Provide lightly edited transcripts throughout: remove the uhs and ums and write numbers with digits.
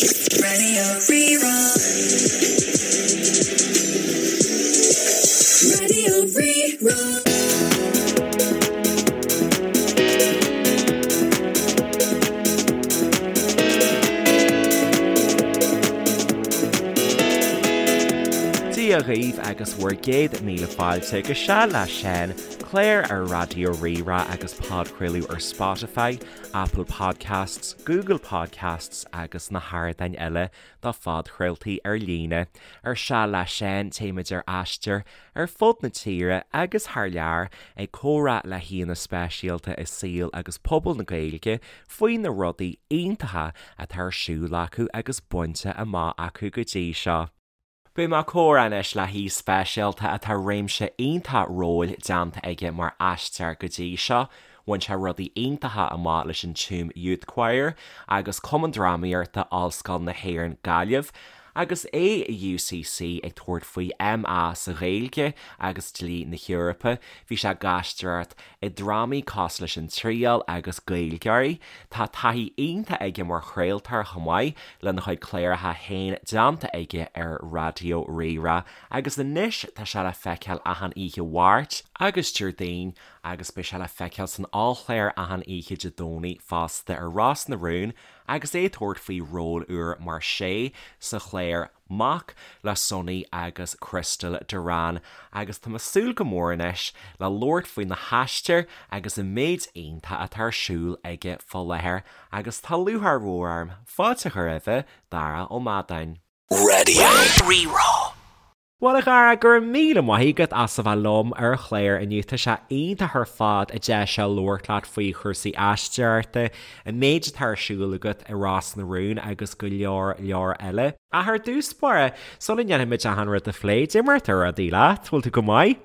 Radio Rí-Rá. Radio Rí-Rá. Dia dhaoibh agus bhur gcéad míle fáilte go Seal le Seán, clár ar Raidió Rí-Rá agus podchraoladh ar Spotify, Apple Podcasts, Google Podcasts agus na hardáin eile do phodchraoltaí ar líne. Ar Seal le Seán, téimid ar aistear ar fud na tíre agus thar lear ag comhrá le haíonna speisialta i saol agus pobal na Gaeilge faoi na rudaí iontacha atá ar siúl acu agus bainte amach acu go dtí seo. Beidh mé ag comhrá anois le haoi speisialta atá réimse iontach róil déanta aige mar aisteoir go dtí seo. Bhain sé rudaí iontacha amach leis an Tuam Youth Choir agus Cumann Drámaíochta Ollscoil na hÉireann Gaillimh agus é i UCC ag tabhairt faoi MA sa Ghaeilge agus Dlí na hEorpa. Bhí sé ag aisteoireacht i drámaí cosúil leis An Triail agus Gaeilgeoirí. Tá taithí iontach aige mar chraoltóir chomh maith, lena chuid cláracha féin déanta aige ar Raidió Rí-Rá agus anois tá sé le feiceáil achan oíche Mháirt agus Déardaoin agus beidh sé le feiceáil san ollchlár achan oíche Dé Domhnaigh fosta ar Ros na Rún agus é ag tabhairt faoi ról úr mar Shay sa chlár Mac le Sonny agus Crystal Duran agus tá mé ag súil go mór anois le labhairt faoi na haistir agus an méid iontach atá ar siúl aige fá láthair agus tá lúcháir mhór orm fáilte a chur roimhe, Dara Ó Madáin. Radio Rí-Rá. Bhuel a Dhara, go raibh míle maith agat as a bheith liom ar an chlár inniu. Tá sé iontach ar fad an deis seo labhairt leat faoi chúrsaí aisteoireachta, an méid atá ar siúl agat i Ros na Rún agus go leor leor eile. Ach ar dtús báire, sula ndéanfaimid achan rud a phlé, cad é mar atá rudaí leat? Bhfuil tú go maith?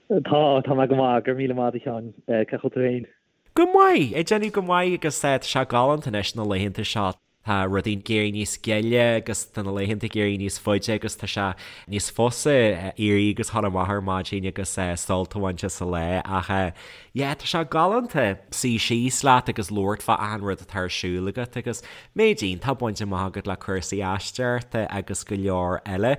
Tá, tá mé go maith, go raibh míle maith agat a Sheáin. Cén chaoi a bhfuil tú féin? Go maith! Ag déanamh go maith agus tá sé galánta anois na laethanta seo. Tá rudaí ag éirí níos gile agus tá na laethanta ag éirí níos faide agus tá sé níos fusa éirí agus dhul amach ar maidin agus sult a bhaint as an lá ach yeah tá sé galánta suí síos leat agus labhairt fá achan rud atá ar siúl agat agus méid iontach bainte amach agat le cúrsaí aisteoireachta agus go leor eile.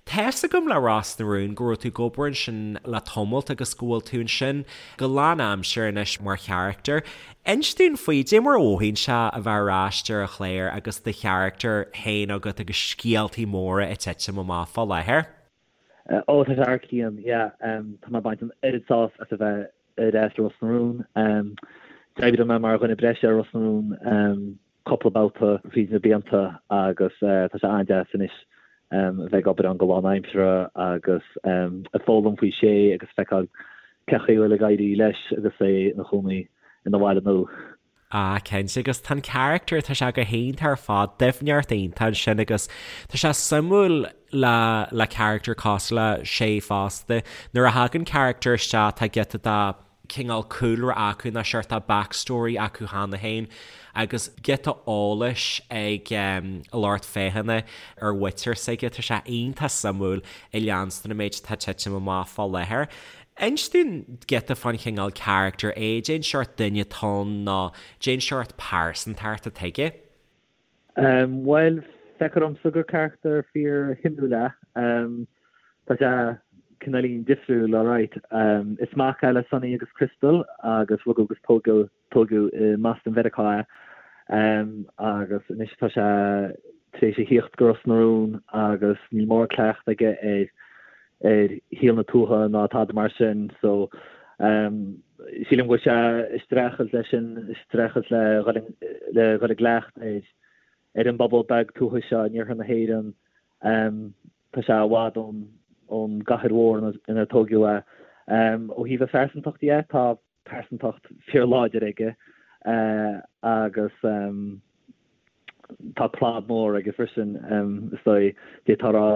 Tá's agam le Ros na Rún go raibh tú ag obair ansin le tamalt agus go bhfuil tú ansin go lánaimseartha anois mar charachtar. Inis dúinn faoi, cad é mar a mhothaíonn sé a bheith ar ais ar an chlár agus do charachtar féin agat agus scéaltaí móra ag titim amach fá láthair. Ó, tá sé thar cionn, yeah. Tá mé ag baint an oiread sásamh as a bheith ar ais i Ros na Rún. D'oibrigh mé mar dhuine breise ar Ros na Rún cúpla babhta fríd na blianta agus tá sé an-deas anois a bheith ag obair ann go lánaimseartha agus ag foghlaim faoi Shay agus feiceáil cén chaoi a bhfuil ag éirí leis agus é ina chónaí ina bhaile nua. Ah, cinnte, agus tá an charachtar, tá sé go hiontach ar fad, doimhneacht iontach ansin agus tá sé suimiúil le le charachtar cosúil le Shay fosta. Nuair a thagann charachtar isteach tá giota de cineál cúlra acu nó seort de backstory acu cheana féin agus giota eolais ag an lucht féachana ar mhuintir s'aige. Tá sé iontach suimiúil ag leanstan an méid atá ag titim amach fá láthair. Inis dúinn giota fán chineál charachtar é, cén seort duine atá ann nó cén seort pearsantacht atá aige. Bhuel, feictear domsa gur carachtar fíor-shuimiúil é. Tá sé cineáilín difriúil, alright. Is mac é le Sonny agus Crystal agus rugadh agus tógadh tógadh i mBoston Mheiriceá é. Agus anois tá sé tar éis a thíocht go Ros na Rún agus níl mórán cleachtadh aige ar ar shaol na tuaithe ná tada mar sin so sílim go bhfuil sé ag streachailt leis sin, ag streachailt le le dhul i gcleachtadh ar ar an bpobal beag tuaithe seo in iarthar na hÉireann. Tá sé i bhfad ón ón gcathair mhór inar tógadh é. Ó thaobh a phearsantacht dhe, tá pearsantacht fíorláidir aige agus tá clab mór aige freisin, is dóigh, d'fhéadfá a rá.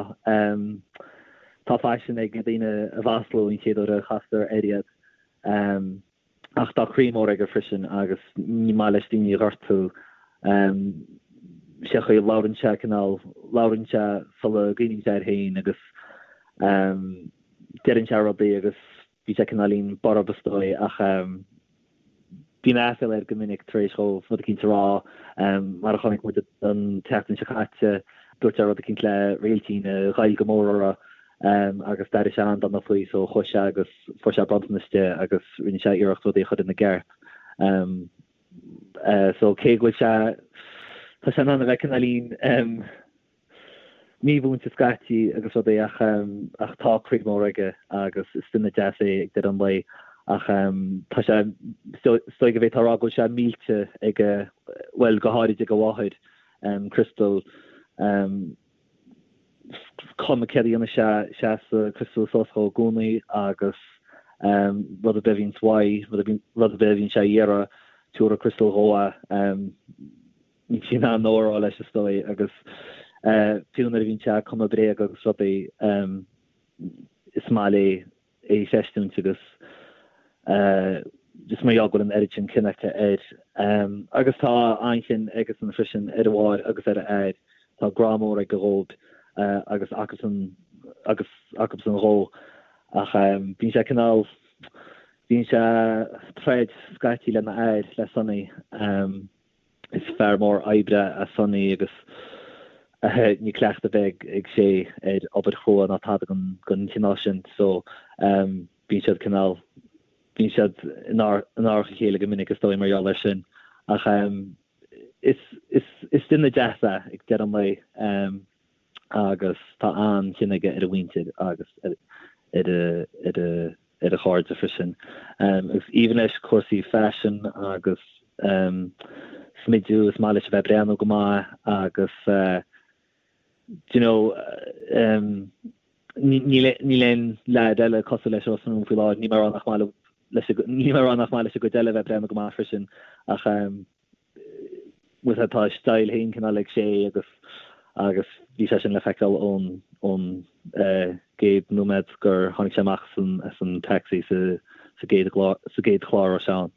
Tá faisean ag daoine a mhaslú an chéad uair a chastar air iad. Ach tá croí mór aige freisin agus ní maith leis daoine a ghortú. Sé an chaoi a labhrann sé, cineál, labhrann sé sula gcuimhníonn sé air féin agus deireann sé rudaí agus Bíonn sé cineáilín borb is dóigh ach. Bíonn aiféala air go minic tar éis dhó rud eicínt a rá. Mar a chonaic muid an tseachtain seo caite, dúirt sé rud eicínt le Réiltín a ghoill go mór uirthi agus d'éirigh sé an-dona faoi so chuaigh sé agus fuair sé bronntanas di agus rinne sé iarracht rudaí a chur ina gceart. So cé go bhfuil sé, tá sé in ann a bheith cineáilín mímhúinte scaití agus rudaí ach ach tá croí mór aige agus is duine deas é ag deireadh an lae ach tá sé, is dóigh go bhféadfá a rá go bhfuil sé millte ag a, bhuel go háirid ag a mháthair, Crystal. Cuma céard a dhéanann sé, seasann Crystal suas dhó i gcónaí agus rud ar bith a bhíonns uaidh, rud ar bith a bhíonn sé a iarraidh, tabharfaidh Crystal dhó é. Níl sí in ann no a rá leis is dóigh agus fiú nuair a bhíonn sé ag cumadh bréaga agus rudaí is maith léi é a chreistiúint agus is mar gheall go bhfuil an oiread sin cion aici air. Agus tá an-chion aigesan freisin ar a mháthair agus ar a athair. Tá grá mór aige dhóibh agus acusan agus acusan dhó ach bíonn sé cineál, bíonn sé ag troid scaití lena athair, le Sonny. Is fear mór oibre é Sonny agus níl cleachtadh ar bith ag Shay ar obair chrua ná tada den chineál sin so bíonn siad cineál, bíonn siad in árach a chéile go minic is dóigh mar gheall air sin. Ach is, is, is duine deas é ag deireadh an lae agus tá an-chion aige ar a mhuintir agus ar a, ar a, ar a chairde freisin. Agus aoibhinn leis cúrsaí faisin agus smidiú, is maith leis a bheith ag breathnú go maith agus do you know níl aon leaid eile cosúil leis i Ros na Rún faoi láthair, níl mé ag rá nach maith leis, níl mé ag rá nach maith leis an gcuid eile a bheith ag breathnú go maith freisin ach bhuel tá a style féin cineál ag Shay agus agus bhí sé sin le feiceáil ón ón gcéad nóiméad gur tháinig sé amach as an as an taxi sa sa gcéad sa gcéad chlár a raibh sé ann.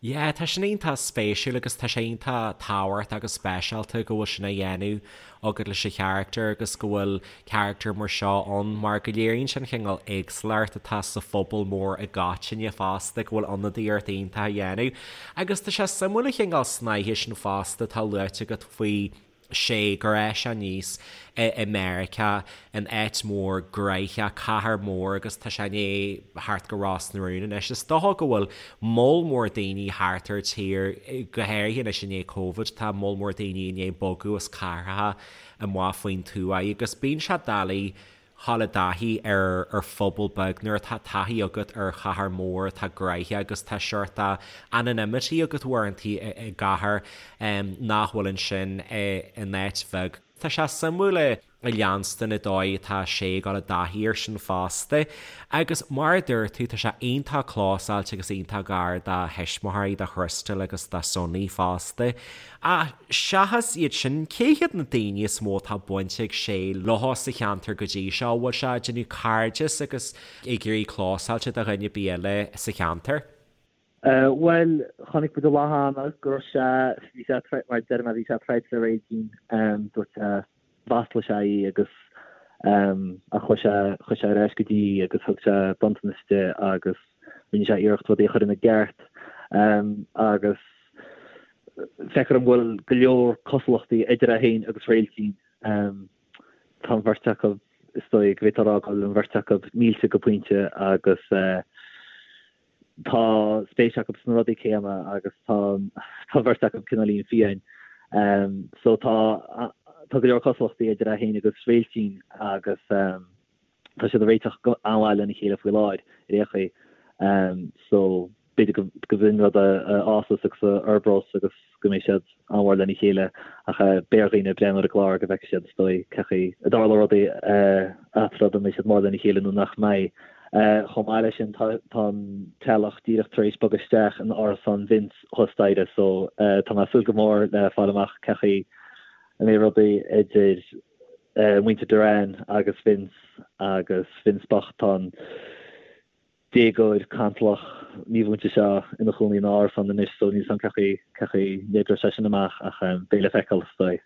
Yeah, tá sin iontach spéisiúil agus tá sé iontach tábhachtach agus speisialta go bhfuil sin á dhéanamh agat leis an charachtar agus go bhfuil carachtar mar seo ann mar go léiríonn sé an chineál éagsúlacht atá sa phobal mór i gcoitinne fosta, go bhfuil ionadaíocht iontach á dhéanamh. Agus tá sé suimiúil an chineál snáithe sin fosta atá luaite agat faoi Shay gur fhás sé aníos i Meiriceá, in áit mhór gnoitheach, cathair mhór agus tá sé i ndiaidh theacht go Ros na Rún anois. Is dócha go bhfuil moll mór daoine thart ar tír, go háirithe anois i ndiaidh Covid, tá moll mór daoine i ndiaidh bogadh as cathracha amuigh faoin tuaith agus bíonn sé doiligh dhul i dtaithí ar ar phobal beag nuair atá taithí agat ar chathair mhór atá gnoitheach agus tá seort anonymity agat uaireantaí i gcathair nach bhfuil ansin in áit bheag. Tá sé suimiúil a leanstan an dóigh atá sé ag dul i dtaithí air sin fosta. Agus mar a dúirt tú, tá sé iontach clósáilte agus iontach gar dá thuismitheoirí, do Chrystal agus do Sonny fosta. Ach seachas iad sin, cé hiad na daoine is mó atá baint ag Shay leo sa cheantar go dtí seo? An bhfuil sé ag déanamh cairdeas agus ag éirí clósáilte do dhuine ar bith eile sa cheantar? Bhuel, chonaic muid an lá cheana go raibh sé, bhí sé, mar a deir mé, bhí sé ag troid le Réiltín, dúirt sé, mhaslaigh sé í agus ach chuaigh sé, chuaigh sé ar ais go dtí í agus thug sé bronntanas di agus rinne sé iarracht rudaí a chur ina gceart agus feictear dom go bhfuil go leor cosúlachtaí idir é féin agus Réiltín. Tá an bheirt acu, is dóigh go bhféadfá a rá go bhfuil an bheirt acu millte go pointe agus tá spéis acu sna rudaí céanna agus tá an bheirt acu cineáilín fiáin. So tá tá go leor cosúlachtaí idir é féin agus Réiltín agus tá siad ag réiteach go an-mhaith lena chéile faoi láthair ar aon chaoi. So b'fhéidir go go b'in rud a fhásas agus a fhorbrós agus go mbeidh siad an-mhór lena chéile ach beidh ar dhaoine breathnú ar an gclár go bhfeicfidh siad is dóigh cén chaoi a dtarlóidh rudaí eatarthu an mbeidh siad mór lena chéile nó nach mbeidh. Chomh maith leis sin tá an teaghlach díreach tar éis bogadh isteach in árasán Vince thuas staighre so tá mé ag súil go mór le fáil amach cén chaoi a mbeidh rudaí idir muintir Doran agus Vince agus Vince bocht tá an déagóir cantalach mímhúinte seo ina chónaí in árasán anois so níl 's agam cén chaoi cén chaoi a n-oibreoidh sé sin amach ach beidh le feiceáil is dóigh.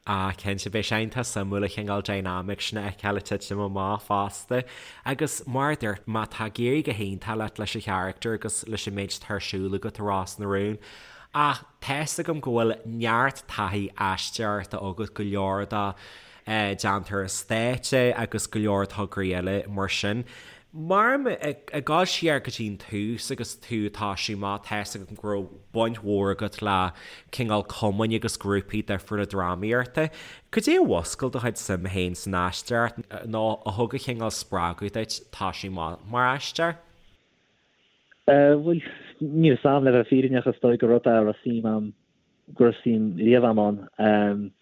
Ah, cinnte, beidh sé iontach suimiúil an cineál dynamic sin a fheiceáil ag titim amach fosta. Agus mar a dúirt mé, tá ag éirí go hiontach leat leis an charachtar agus leis an méid atá ar siúl agat i Ros na Rún. Ach tá's agam go bhfuil neart taithí aisteoireachta agat, go leor de déanta ar an stáitse agus go leor tograí eile mar sin. Mar ag dul siar go dtí an tús agus tú ag toisiú amach, tá's agam go raibh baint mhór agat le cineál cumainn agus grúpaí difriúla drámaíochta. Cad é a mhúscail do chuid suime féin san aisteoireacht nó a thug an cineál spreagadh duit toisiú amach mar aisteoir? Bhuel, níl 'fhios a'm, le bheith fírinneach, is dóigh gur rud é a raibh suim a'm go raibh suim riamh a'm ann.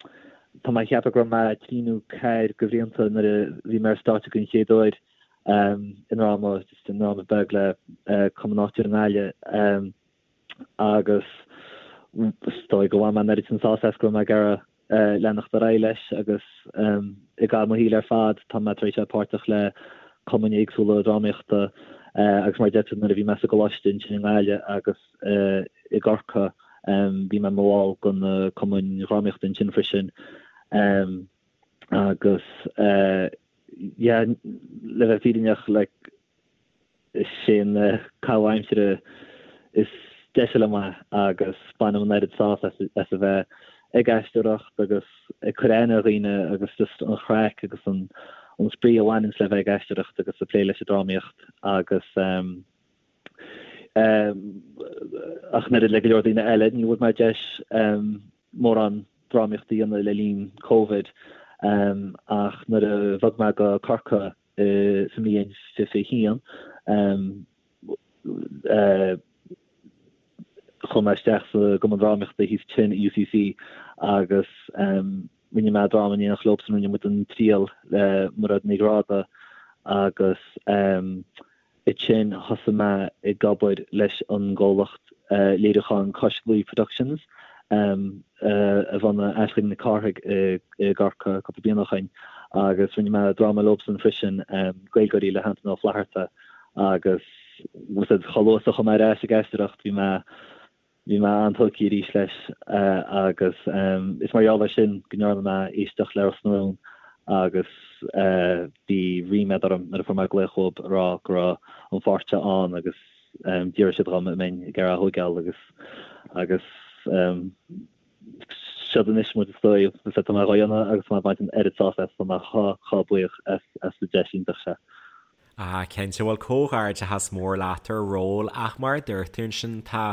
Tá mé ag ceapadh go raibh mé trí nó ceathair de bhlianta nuair a bhí mé ar stáitse den chéad uair i ndráma, just i ndráma beag le cumann áitiúil i nGaillimh agus is dóigh go bhain mé an oiread sin sásamh as go raibh mé ag iarraidh leanacht ar aghaidh leis agus i gcaitheamh mo shaoil ar fad tá mé tar éis a bheith páirteach le cumainn éagsúla drámaíochta agus mar a deir tú nuair a bhí mé sa gcoláiste ansin i nGaillimh agus i gCorcaigh bhí mé i mo bhall de na cumainn dhrámaíochta ansin freisin agus yeah le bheith fírinneach like Is é an caitheamh aimsire is deise liom é agus bainim an oiread sásamh as a bheith ag aisteoireacht agus ag cur aithne ar dhaoine agus just an chraic agus an spraoi a bhaineanns le bheith ag aisteoireacht agus ag plé leis an drámaíocht agus ach an oiread le go leor daoine eile ní bhfuair mé deis mórán drámaíocht a dhéanamh le linn Covid ach nuair a bhog mé go Corcaigh sa mbliain 21, chuaigh mé isteach sa gCumann Drámaíochta thíos ansin i UCC agus rinne mé dráma in éineacht leobsan, rinne muid An Triail le Mairéad Ní Ghráda agus Ansin thosaigh mé ag obair leis an gcomhlacht léiriúcháin Cois Laoi Productions a bhunaigh Aisling Nic Cárthaigh i gCorcaigh cúpla bliain ó shoin agus rinne mé dráma leobsan freisin, Gaeilgeoirí le hAntaine Ó Flatharta agus chomh luath is a chuaigh mé ar ais ag aisteoireacht bhí mé Bhí mé an-tógtha arís leis agus is mar gheall air sin go ndearna mé éisteacht le Ros na Rún agus bhí ríméad orm nuair a fuair mé glaoch uathu ag rá go raibh an pháirt seo ann agus d'fhiafraigh siad dhom an mbeinn ag iarraidh a thóigeáil agus agus seod anois muid is dóigh tá mé dhá dhéanamh agus tá mé ag baint an oiread sásamh as tá mé chomh chomh buíoch as as an deis iontach seo. Ah, cinnte, bhuel comhghairdeachas mór leat ar an ról ach mar a dúirt tú ansin tá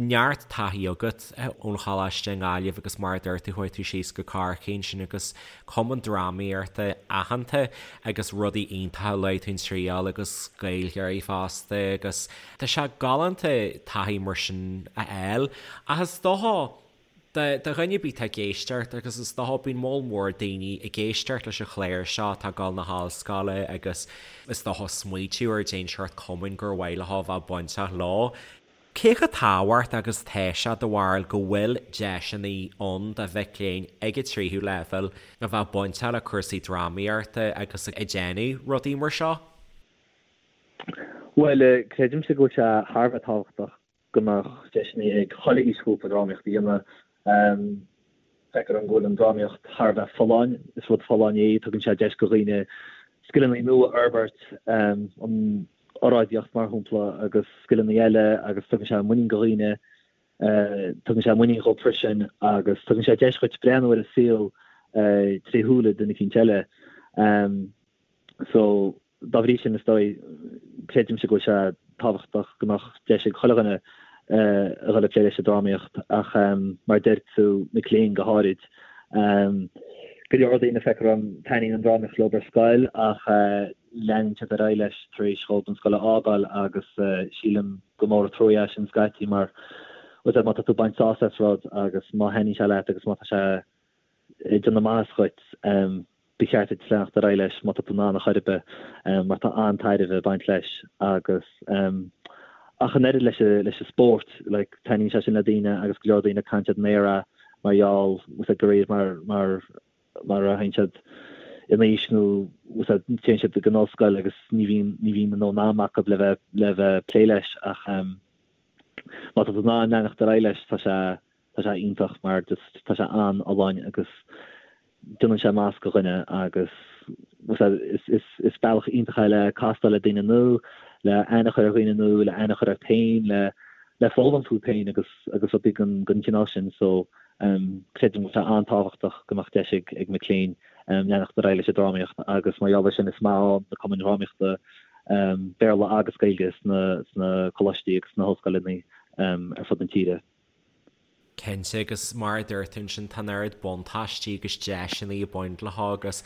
neart taithí agat ón choláiste i nGaillimh agus mar a dúirt tú chuaigh tú síos go Corcaigh ansin agus cumann drámaíochta aitheanta agus rudaí iontacha a luaigh tú An Triail agus Gaeilgeoirí fosta agus tá sé galánta taithí mar sin a fháil ach is dócha Do dhuine ar bith atá ag éisteacht, agus is dócha bíonn moll mór daoine ag éisteacht leis an chlár seo atá ag dul na hollscoile agus is dócha smaoitiú ar cén seort cumainn gur mhaith leo a bheith bainteach leo. Cé chomh tábhachtach agus atá sé do bharúil go bhfuil deiseanna ann do mhic léinn ag an tríú leibhéal a bheith bainteach le cúrsaí drámaíochta agus ag déanamh rudaí mar seo? Bhuel, creidimse go bhfuil sé thar a bheith tábhachtach go mbeadh deiseanna ag chuile aoisghrúpa drámaíocht a dhéanamh. Feictear dom go bhfuil an drámaíocht thar a bheith folláin, is rud folláin é, tugann sé deis do dhaoine scileanna nua a fhorbairt, an oráidíocht mar shampla agus scileanna eile agus tugann sé muinín do dhaoine, tugann sé muinín dhóibh freisin agus tugann sé deis dhuit breathnú ar an saol tré shúile duine eicínt eile. So. Dá bhrí sin, is dóigh, creidimse go bhfuil sé tábhachtach go mbeadh deis ag chuile dhuine a dhul ag plé leis an drámaíocht ach mar a deir tú, mic léinn go háirid. Go leor daoine, feictear dom, taitníonn an drámaíocht leo ar scoil ach leanann siad ar aghaidh leis tar éis dhóibh an scoil a fhágáil agus sílim gur mór an trua é sin scaití mar má tá tú ag baint sásamh as rud agus má thaitníonn sé leat agus má tá sé ag déanamh maitheas dhuit, ba cheart duit leanacht ar aghaidh leis má tá tú in ann ar chor ar bith, mar tá an-tairbhe ag baint leis agus ach an oiread leis leis an spórt, like, taitníonn sé sin le daoine agus go leor daoine caitheann siad an aer é mar gheall, bhfuil de réir mar mar mar a théann siad in aois nó bhfuil téann siad go an ollscoil agus ní bhíonn ní bhíonn a ndóthain ama acu le bheith le bheith plé leis ach má tá tú in ann leanacht ar aghaidh leis tá sé Tá sé iontach mar just tá sé an-fholláin agus. Déanann sé masc de dhuine agus is bealach iontach é le castáil le daoine nua, le aithne a chur ar dhaoine nua, le aithne a chur ort féin, le le foghlaim fút féin agus agus rudaí den den chineál sin. So creidim go bhfuil sé an-tábhachtach go mbeadh deis ag ag mic léinn leanacht ar aghaidh leis an drámaíocht agus mar gheall air sin is maith ann na cumainn dhrámaíochta Béarla agus Gaeilge sna sna coláistí agus sna hollscoileanna ar fud na tíre. Cinnte, agus mar a dúirt tú ansin, tá an oiread buntáistí agus deiseanna ag baint leo agus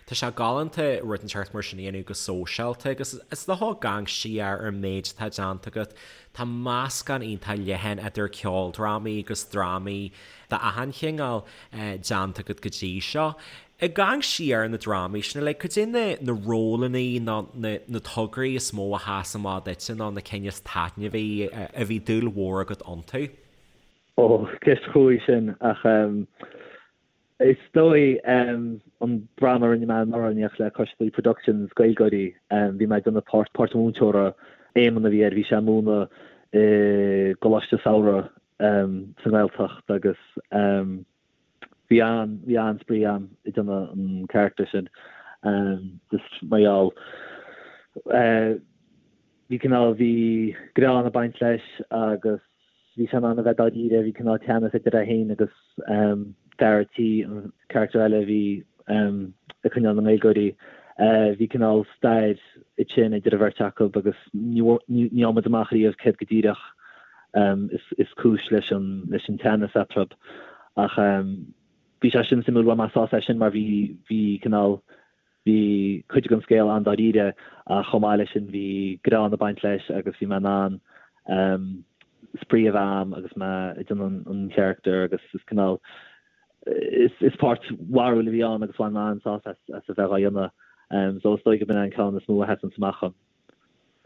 tá sé galánta rud inteacht mar sin a dhéanamh go sóisialta agus is dócha ag amharc siar ar an méid atá déanta agat, tá meascán iontach leathan idir ceoldrámaí agus drámaí d'achan chineál déanta agat go dtí seo. Ag amharc siar ar na drámaí sin uilig, cad é na na rólanna nó na na tograí is mó a sheas amach duitse nó na cinn is taitneamhaí a bhí dúil mhór agat iontu? Ó, ceist chruaidh sin, ach is dóigh an dráma a rinne mé anuraidh in éineacht le Cois Laoi Productions, Gaeilgeoirí, bhí mé ag déanamh páirt, páirt an mhúinteora, Éamonn a bhí air, bhí sé ag múineadh i gcoláiste samhraidh sa nGaeltacht agus bhí an, bhí an-spraoi agam ag déanamh an charachtar sin, just mar gheall, bhí cineál, bhí greann ag baint leis agus. Bhí sé in ann a bheith dáiríre, bhí cineál teannas idir é féin agus fear a' tí, an carachtar eile a bhí ag coinneáil na nGaeilgeoirí. Bhí cineál stair ansin idir an bheirt acu agus ní fhaigheann muid amach riamh céard go díreach is cúis leis an leis an teannas eatarthu. Ach bhí sé sin suimiúil, bhain mé sásamh as sin mar bhí bhí cineál Bhí cuid den scéal an-dáiríre ach chomh maith leis sin bhí greann ag baint leis agus bhí mé in ann spraoi a bheith a'm agus mé ag déanamh an charachtar agus is cineál is páirt bharrúil a bhí ann agus bhain mé an-sásamh as a bheith dhá dhéanamh. So is dóigh go b'in é an ceann is mó a sheasann amach dhom.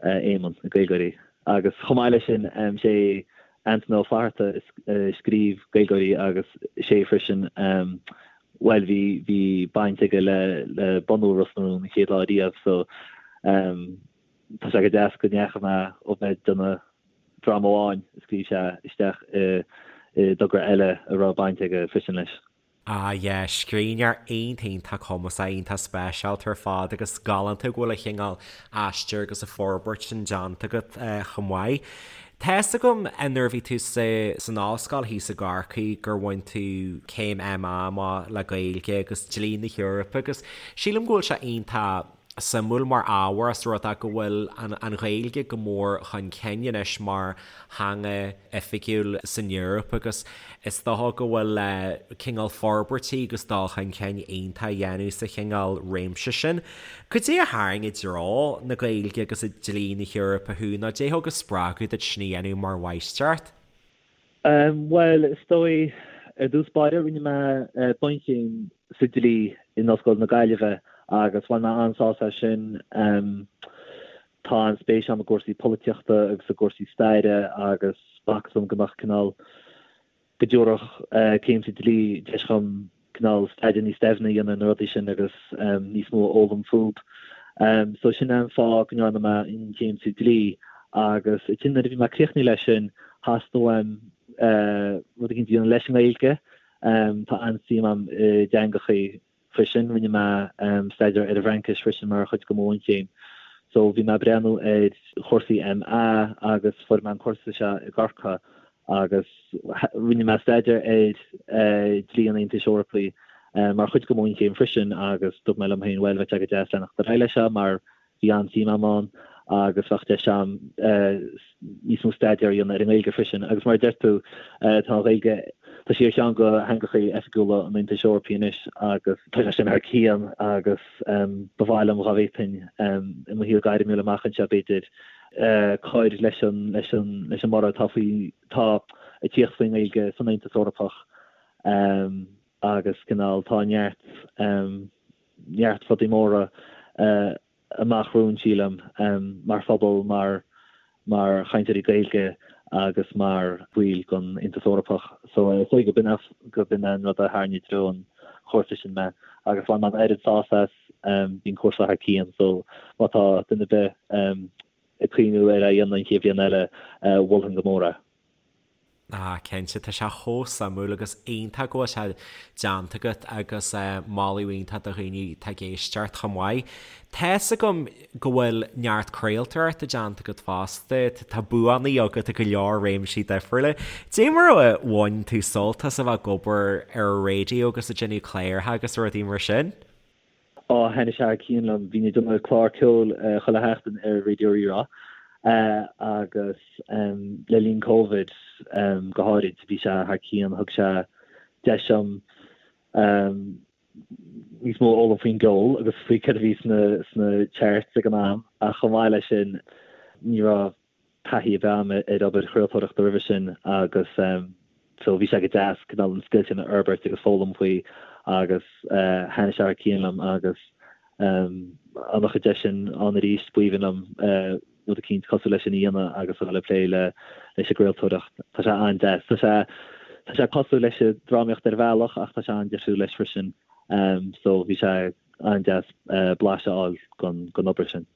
Éamonn, i Gaeilgeoirí. Agus chomh maith leis sin, sé Antaine Ó Flatharta a scríobh Gaeilgeoirí agus sé freisin, bhuel, bhí, bhí baint aige le, le bunú Ros na Rún an chéad lá riamh so tá sé go deas go ndeachaigh mé ó bheith ag déanamh dráma amháin a scríobh sé isteach i, i dtogra eile a raibh baint aige freisin leis. Ah yeah, scríbhneoir iontach iontach cumasach, iontach speisialta ar fad agus galánta go bhfuil an chineál aistir agus an forbairt sin déanta agat chomh maith. Tá fhios agam nuair a bhí tú sa san ollscoil thíos i gCorcaigh gur bhain tú céim MA amach le Gaeilge agus Dlí na hEorpa agus sílim go bhfuil sé iontach suimiúil mar ábhar os rud é go bhfuil an Ghaeilge go mór chun cinn anois mar theanga oifigiúil san Eoraip agus is dócha go bhfuil cineál forbairtí agus dul chun cinn iontach á dhéanamh sa chineál réimse sin. Cad é a tharraing i dtreo na Gaeilge agus i dlí na hEorpa thú nó cad é a thug an spreagadh duit sin a dhéanamh mar mháistreacht? Bhuel, is dóigh, ar dtús báire, rinne mé bunchéim sa dlí in Ollscoil na Gaillimhe agus bhain mé an-sásamh as sin. Tá an-spéis agam i gcúrsaí polaitíochta agus i gcúrsaí staire agus b'fhacthas dom go mbeadh cineál, go dtabharfadh céim sa dlí deis dhom cineál staidéar níos doimhne a dhéanamh ar na rudaí sin agus níos mó a fhoghlaim fúb. So sin é an fáth go ndearna mé an chéim sa dlí agus ansin nuair a bhí mé críochnaithe leis sin theastaigh uaim rud éicint a dhéanamh leis an nGaeilge. Tá an-suim agam i dteangachaí freisin. Rinne mé staidéar ar an bhFraincis freisin mar chuid de mo bhunchéim. So bhí mé ag breathnú ar chúrsaí MA agus fuair mé an cúrsa seo i gCorcaigh agus rinne mé staidéar ar dhlí an Aontais Eorpaigh mar chuid de mo bhunchéim freisin agus dúirt mé liom féin, bhuel, bheadh sé go deas leanacht ar aghaidh leis seo mar bhí an-suim agam ann agus bheadh deis agam níos mó staidéar a dhéanamh ar an nGaeilge freisin. Agus mar a deir tú, tá an Ghaeilge, tá sí ar cheann de theangacha oifigiúla an Aontais Eorpaigh anois agus tá sé sin thar cionn agus ba mhaith liom dhá bhféadfainn i mo shaol gairmiúil amach anseo b'fhéidir, cur leis an leis an leis an mborradh atá faoi tá ag tíocht faoin nGaeilge san Aontas Eorpach agus cineál tá neart neart rudaí móra amach romhainn sílim mar phobal mar mar chainteoirí Gaeilge agus mar bhaill den Aontas Eorpach. So is dóigh go b'in go b'in an rud a tharraing i dtreo an chúrsa sin mé agus bhain mé an oiread sásamh as. Bhí an cúrsa thar cionn so má tá duine ar bith ag cuimhniú ar é a dhéanamh an chéad bhliain eile, mholfainn go mór é. Ah, cinnte, tá sé chomh suimiúil agus iontach go bhfuil sé déanta agat agus moladh iontach do dhaoine atá ag éisteacht chomh maith. Tá's agam go bhfuil neart craoltóireachta déanta agat fosta, tá buanna agat i go leor réimsí difriúla. Dé mar a bhain tú sult as a bheith ag obair ar an raidió agus ag déanamh cláracha agus rudaí mar sin? Á, thaitnigh sé thar cionn liom. Bhínn ag déanamh clár ceoil chuile sheachtain ar Raidió Rí-Rá agus le linn Covid go háirid, bhí sé thar cionn. Thug sé deis dom níos mó a fhoghlaim faoin gceol agus faoi céard a bhí sna charts ag an am ach chomh maith leis sin ní raibh taithí ar bith agam ar obair chraoltóireachta roimhe sin agus so bhí sé go deas cineál an scil sin a fhorbairt agus foghlaim faoi agus thaitnigh sé thar cionn liom agus dá mbeadh an deis sin ann arís b'aoibhinn liom rud eicínt cosúil leis sin a dhéanamh agus a dhul ag plé le leis an gcraoltóireacht. Tá sé an-deas. Tá sé tá sé cosúil leis an drámaíocht ar bhealach ach tá sé an-difriúil leis freisin so bhí sé an-deas blaiseadh a fháil den obair sin.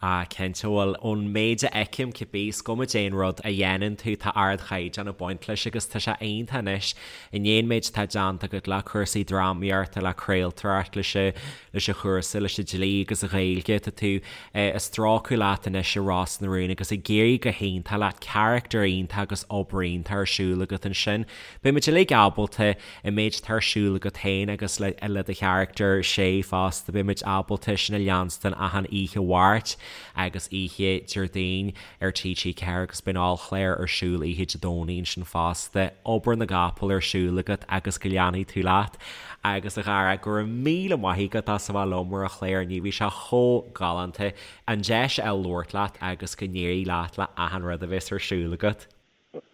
Ah, cinnte, bhuel, ón méid a fheicim, cibé, is cuma cén rud a dhéanann tú, tá ardchaighdeán ag baint leis agus tá sé iontach anois, i ndiaidh an méid atá déanta agat le cúrsaí drámaíochta, le craoltóireacht, leis an, leis an chúrsa, leis an dlí agus an Ghaeilge, tá tú ag strácadh leat anois i Ros na Rún agus ag éirí go hiontach leat, carachtar iontach agus obair iontach ar siúl agat ansin. Beidh muid uilig ábalta an méid atá ar siúl agat féin agus le le do charachtar Shay fosta, beidh muid ábalta sin a leanstan achan oíche Mháirt agus oíche Déardaoin ar TG4 agus beidh an ollchlár ar siúl oíche Dé Domhnaigh ansin fosta. Obair na gcapall ar siúl agat agus go leanfaidh tú leat. Agus a Dhara, go raibh míle maith agat as a bheith liom ar an chlár inniu, bhí sé chomh galánta an deis a fháil labhairt leat agus go n-éirí leat le achan rud a bheas ar siúl agat.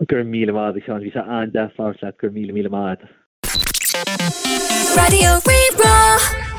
Go raibh míle maith agat, a Sheáin. Bhí sé an-deas labhairt leat. Go raibh míle míle maith agat. Raidió Rí-Rá.